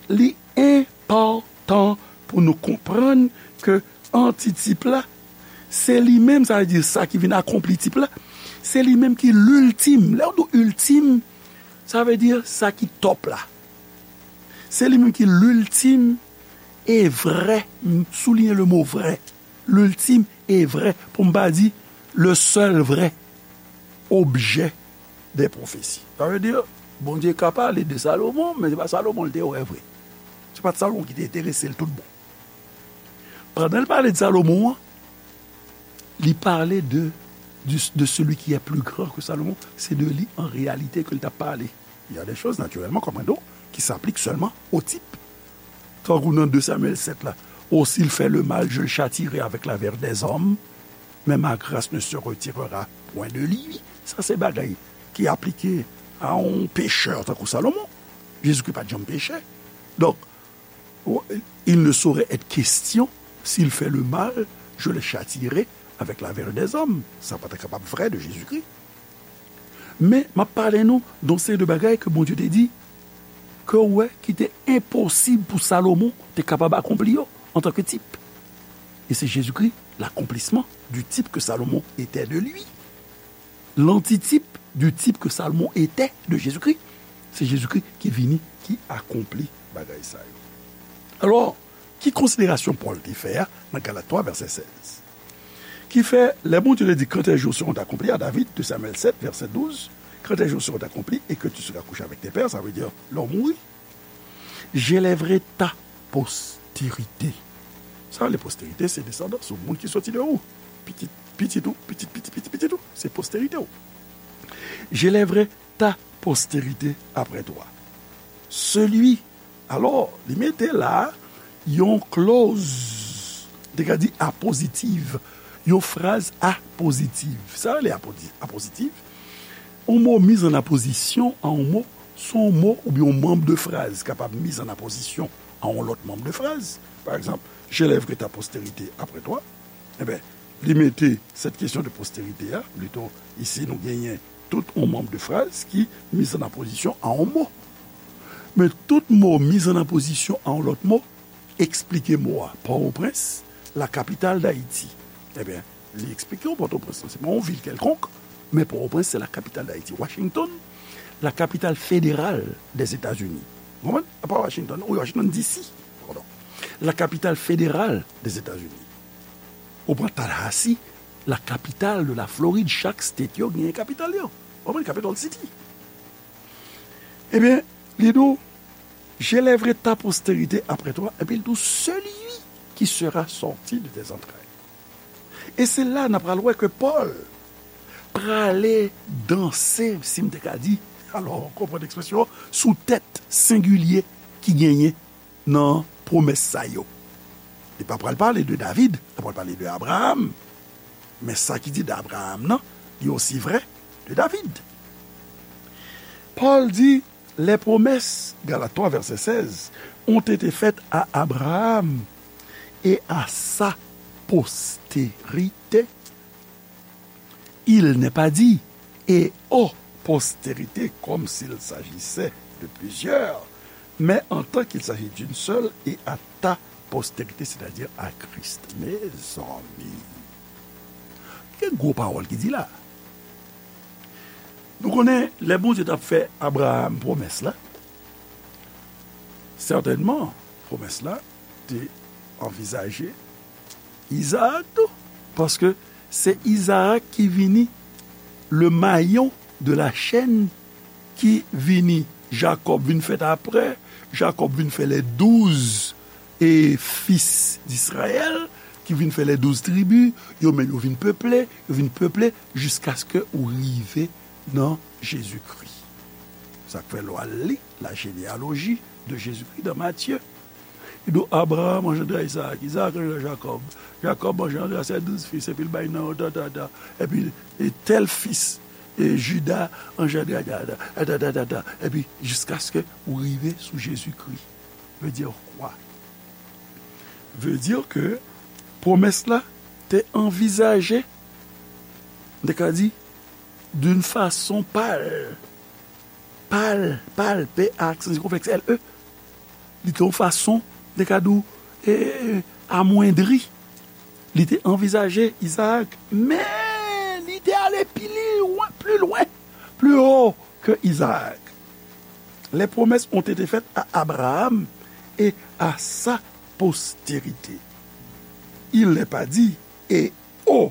li enpòtan pou nou konprann ke antitip la, se li menm, sa vle di sa ki vin akonpli tip la, se li menm ki l'ultime. Lè w di ultime, sa vle di sa ki top la. Se li menm ki l'ultime et vrai, m souliyen le mo vrai, l'ultime et vrai, pou m pa di le seul vrai objet des prophéties. Sa vle di, Bondye ka pale de Salomon, men se pa Salomon l te wè vre. Se pa t Salomon ki te enterese l tout bon. Pandan l pale de Salomon an, li pale de, du- de celui qui est plus grand que Salomon, se de li an reyalite ke l t ap pale. Il y a des choses, naturellement, comprenons, qui s'appliquent seulement au type. Tankou nan de Samyèl sèt la, Oh, s'il fait le mal, je le châtierai avec la verve des hommes, mais ma grâce ne se retirera point de lui. Sa se bagay ki aplike a yon pechè tankou Salomon. Jezikri pa t janm peche. Donk, il ne saurait être question, s'il fait le mal, je le châtierai avec la verve des hommes. Sa pa ta kapab vre de Jezikri. Men, m ap pale nou de yon seri de bagay ke Bondye te di, ke w wè ki te enposib pou Salomon te kapab akonpli yo antanke tip. E se Jezikri, l'accomplissement du type que Salomon était de lui. L'antitype du type que Salomon était de Jésus-Christ. Se Jezikri ki vini, ki akonpli bagay sa yo. Alò, ki konsiderasyon Pòl te fè a nan Galat twa, vèsè sèz? Ki fè, lè Bondye te di, quand tes jours seront accomplis à David, de Samuel sept, verset douze, quand tes jours seront accomplis et que tu seras couché avec tes pères, sa vle di, lè w mouri, j'élèverai ta postérité. Sa vle posterite, se desandans ou, moun ki soti de ou. Pitit, pitit ou, pitit, pitit, pitit, pitit ou, se posterite ou. J'élèverai ta postérité après toi. Celui, alò, li mete la yon clause, te ka di apozitiv, yon fraz apozitiv. Sa rele apozi- apozitiv? Yon mo miz an apozisyon a yon mo, se yon mo oubyen yon manm de fraz kapab miz an apozisyon a yon lòt manm de fraz. Pa egzanp, j'élèverai ta postérité après toi. Enben, li mete cette question de postérité a, plito, isi nou genyen tout yon manm de fraz ki miz an apozisyon a yon mo. Men tout mo miz an apozisyon a yon lòt mo, eksplike mo a. Pòtoprens, la capitale d'Haïti. Enben, li eksplike w Pòtoprens lan, se pa yon vil kèlkonk, men Pòtoprens, se la capitale d'Haïti. Washington, la capitale fédérale des États-Unis. Ou konprann? A pa Washington, wi, Washington D C, padon. La capitale fédérale des États-Unis. Ou pran Tallahassee, la capitale de la Floride, chak state yo genyen kapital yo. Ou konprann? Capital city. Ebyen, li di w, j'élèverai ta postérité après toi, epi l di w, celui qui sera sorti de tes entrailles. E se la n ap pral wè ke Pòl prale danse, si m te ka di, alò, konprann ekspresyon, sou tèt sengilye ki genyen nan pwomès sa yo. Li pa pral pale de David, li pral pale de Abraham. Men sa ki di de Abraham nan, li osi vrè de David. Pòl di, les promesses, Galates trois, verset seize, ont été faites à Abraham et à sa postérité. Il n'est pas dit, et aux postérités, comme s'il s'agissait de plusieurs, mais en tant qu'il s'agit d'une seule, et à ta postérité, c'est-à-dire à Christ. Mezanmi, gen gwo pawòl ki di la. Nou konnen, lè Bondye t ap fè Abraham pwomès la, sètènman, pwomès la te anvizaje Izaak tou, paske se Izaak ki vini le mayon de la chèn ki vini, Jakòb vin fèt apre, Jakòb vin fè les douze et fils d'Israël, ki vin fè les douze tribus, yo menm yo vin peple, yo vin peple, jiskaske ou rive nan Jezikri. Sa k fè lè w al li la généalogie de Jésus-Christ dans Matthieu. Li di w, Abraham anjandra Izaak, Izaak anjandra Jakòb, Jakòb anjandra ses douze fils, epi l bay non yo, ta, ta, ta. Epi, e tèl fis, e Juda anjandra, ta, ta, ta, ta, ta, ta. Epi, jiskaske ou rive sou Jezikri. Veut dire quoi? Veut dire que pwomès la te anvizaje, m te ka di, d'une façon pâle, pâle, pâle, P A aksan sikonflèks L E. Li te yon fason, m te ka di w, e, amwendri. Li te anvizaje Izaak, men li te ale pi lwen, pli lwen, plus haut que Isaac. Les promesses ont été faites à Abraham et à sa postérité. Il n'est pas dit et aux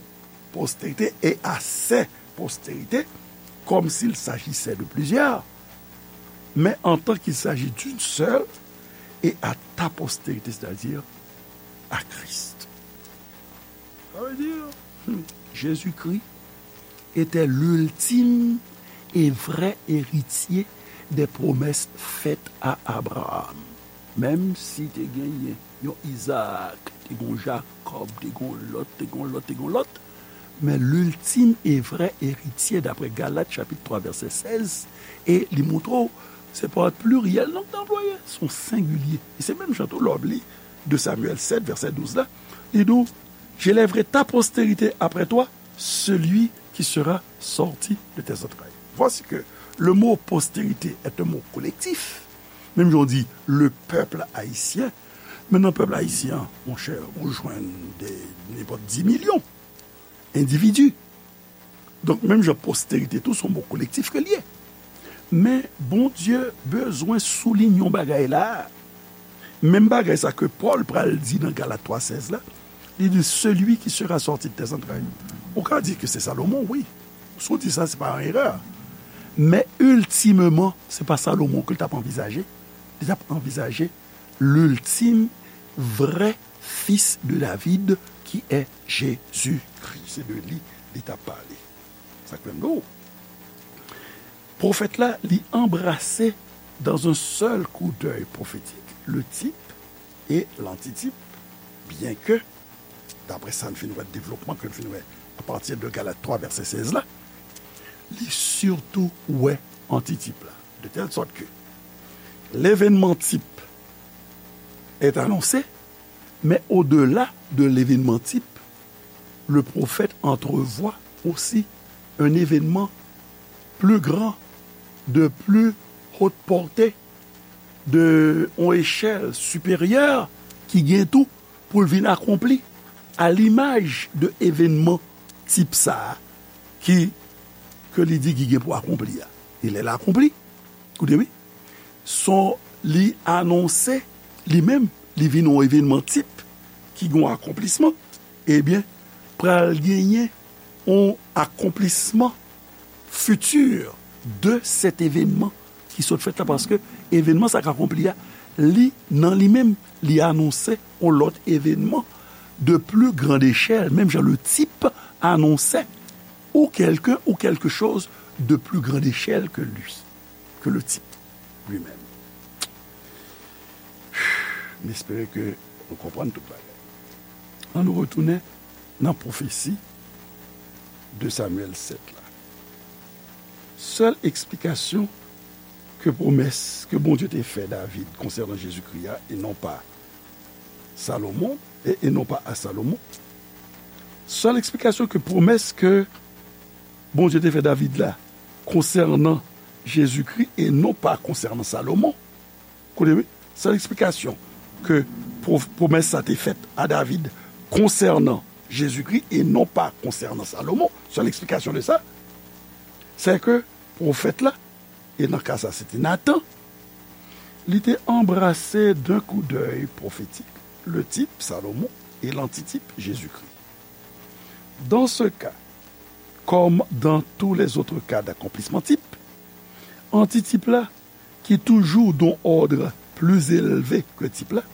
postérités et à ses postérités, comme s'il s'agissait de plusieurs, mais en tant qu'il s'agit d'une seule, et à ta postérité, c'est-à-dire à Christ. Ça veut dire, hmm, Jésus-Christ était l'ultime et vrai héritier des promesses faites à Abraham. Menm si te genyen yon Izaak, te gen yon Jakòb, te gen yon lòt, te gen yon lòt, te gen yon lòt, men l'ultime et vrai héritier, d'après Galat chapit twa vèsè sèz, e li montre w, se pa yon pliryèl non k te anplwaye, se yon sengilye. E se menm jan tou lè w ap li de Samyèl sèt vèsè douz la, li di w, J'élèverai ta postérité après toi, celui qui sera sorti de tes entrailles. Voici que le mot postérité est un mot collectif. Menm jan w di le peuple haïtien, men nan pèp ayisyen an, monchè, ou jwenn de nenpòt dis milyon endividi. Donk, menm jan postérité tou, se yon mo kolektif ke l ye. Men Bondye bezwen souliye yon bagay la. Menm bagay sa ke Pòl pral di nan Galat twa sèz la, li di, celui qui sera sorti de tes entrailles. Ou ka di ke se Salomon, wi. Si w di sa, se pa yon erè. Men iltimeman, se pa Salomon ke l t ap anvizaje. Li t ap anvizaje l'ultime vrai fils de David, qui est Jésus-Christ. Se de li li t ap pale. Sa k fè m di w, pwofèt la, li anbrase dans un seul coup d'œil prophétique le type et l'antitype, bien que, d'après sa n fin wè, devlopman ke n fin wè apati de Galat twa vèsè sèz la, li sitou wè antitype la, de telle sorte que l'événement type est annoncé, mais au-delà de l'événement type, le prophète entrevoit aussi un événement plus grand, de plus haute portée, de yon echèl siperyè ki gen tou pou l vin akonpli à l'image de evènman tip sa a ki, ke li di ki gen pou akonpli a. E lè l akonpli, koute wi, son li anonse li menm, li vin yon evènman tip ki gen yon akonplisman, ebyen, pral genyen yon akonplisman futur de cet événement ki sot fèt la, paske evènman sa k akonpli a, li, nan li menm, li anonse yon lòt evènman de plus grande échelle, menm jan le type annonçait ou quelqu'un ou quelque chose de plus grande échelle que lui, que le type lui-même. M espere ke nou konprann tout bagay. Ann nou retounen nan pwofesi de Samyèl sèt la. Sèl eksplikasyon ke pwomès ke Bondye te fè David konsènan Jezikri a, e non pa Salomon, e, e non pa a Salomon. Sèl eksplikasyon ke pwomès ke Bondye te fè David la konsènan Jezikri e non pa konsènan Salomon, koute wi, sèl eksplikasyon ke pwo-, pwomès sa te fèt a David konsènan Jezikri e non pa konsènan Salomon, sèl eksplikasyon de sa, se ke pwofèt la, e nan ka sa se te Natan, li te anbrase d'un coup d'œil prophétique le type Salomon et l'antitype Jésus-Christ. Dans ce cas, comme dans tous les autres cas d'accomplissement type, antitype la, ki toujou d'un ordre plus élevé que type la,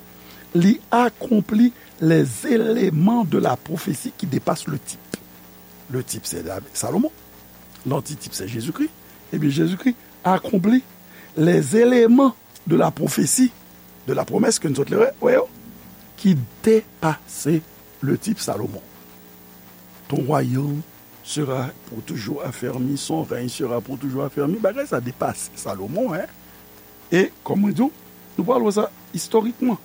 li akonpli les éléments de la prophétie qui dépassent le type. Le type, c'est David, Salomon. L'antitype, c'est Jésus-Christ. Ebyen, Jezikri akonpli les éléments de la prophétie, de la promesse ke nou sot wè, wè yo, qui dépassait le type Salomon. Ton royaume sera pour toujours affermi, son règne sera pour toujours affermi. Bagay sa depase Salomon, hein. E, kòm mwen di w, nou pral wè sa istorikman.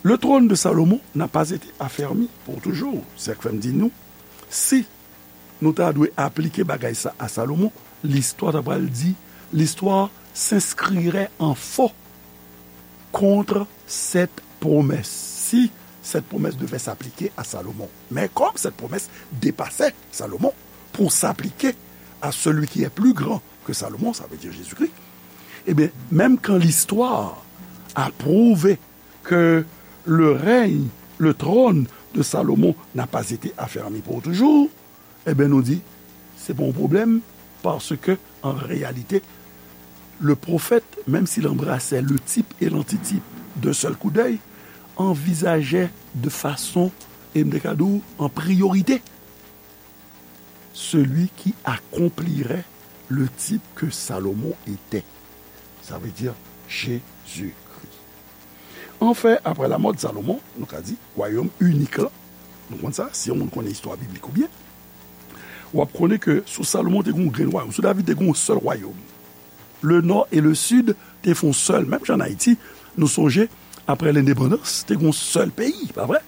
Le trône de Salomon n'a pas été affermi pour toujours. Se sa k fè m di nou, si nou ta dwe aplike bagay sa a Salomon, listwa ta pral di, l'histoire s'inscrirait en faux contre cette promesse, si cette promesse devait s'appliquer à Salomon. Mais comme cette promesse dépassait Salomon pour s'appliquer à celui qui est plus grand que Salomon, ça veut dire Jésus-Christ, eh bien, même quand l'histoire a prouvé que le règne, le trône de Salomon n'a pas été affermi pour toujours, eh bien, nou di, se pa yon pwoblèm, paske, an reyalite, le prophète, même s'il embrassait le type et l'antitype d'un seul coup d'œil, envisageait de façon, e m te ka di w, en priorité, celui qui accomplirait le type que Salomon était. Ça veut dire Jésus-Christ. Anfen, après la mort de Salomon, nou ka di, wayòm inik la, nou konn sa, si yon moun konnen istwa biblik ou byen, w ap konnen ke sou Salomon te gen yon grenn wayòm, sou David te gen yon sèl wayòm. Le nò e le sid te fè yon sèl, menm jan an Ayiti, nou sonje, aprè lendepandans, te gen yon sèl peyi, pa vre?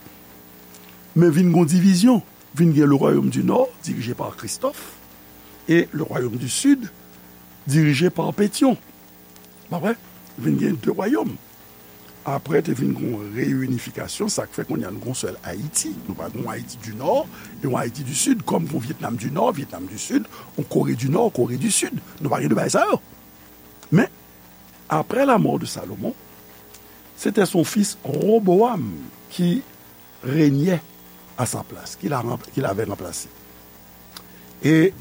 Men vin gen yon divizyon, vin gen le royaume du nord, dirije pa Christophe, e le royaume du sud, dirije pa Pétion. Pa vre? Vin gen de wayòm. Apre, te vin gen yon reyinifikasyon, sa k fè kounye a nou gen yon sèl Ayiti. Nou pa gen yon Ayiti du nò e yon Ayiti du sid, kòm gen yon Vietnam du nò, Vietnam du sid, yon Kore du nò, Kore du sid. Nou pa gen de bagay sa yo. Men, après la mort de Salomon, c'était son fils Roboam qui régnait à sa place, qui l'a ranpl-, qui l'avait remplacé. E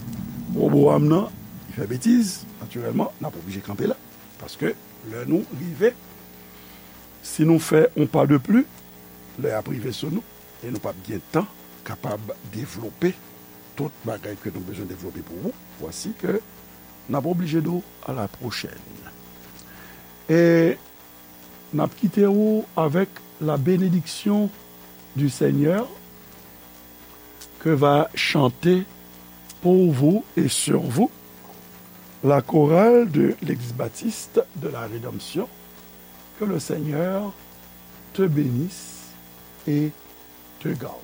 Roboam nan, li fè betiz, natirèlman, n ap oblije kanpe la. Paske lè nou rive, si nou fè yon pa de pli, lè y ap rive sou nou, e nou p ap gen tan kapab devlope tout bagay ke nou bezwen devlope pou ou. Vwasi ke n ap oblije di w à la prochaine. E n ap kite ou avec la bénédiction du Seigneur que va chanter pour vous et sur vous la chorale de l'Église baptiste de la Rédemption. Que le Seigneur te bénisse et te garde.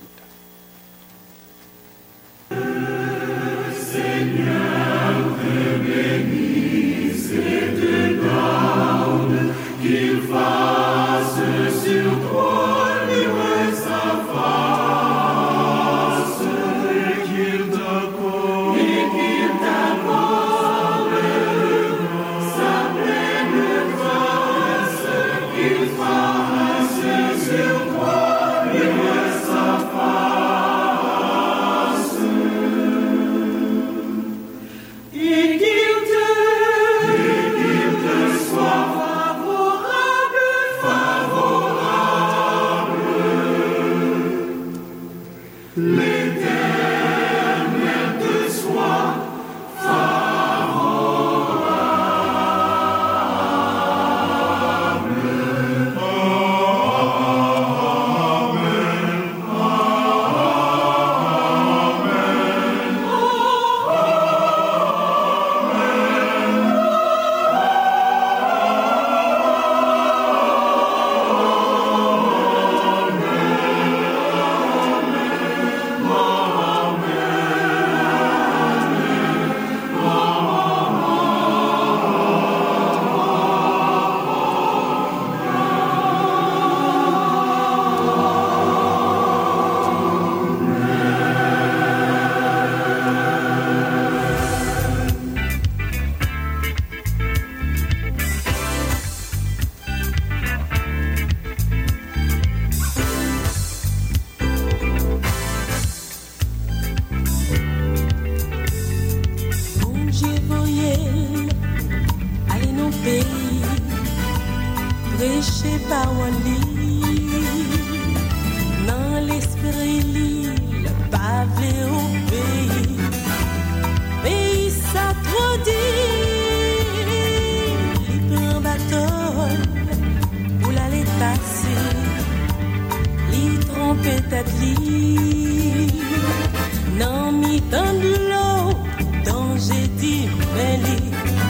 Bondye voye l ale nan peyi, preche pawòl li nan lespri li, l pa vle obeyi. Peyi sa twò di. Tèt li nan mitan dlo, danje di men li.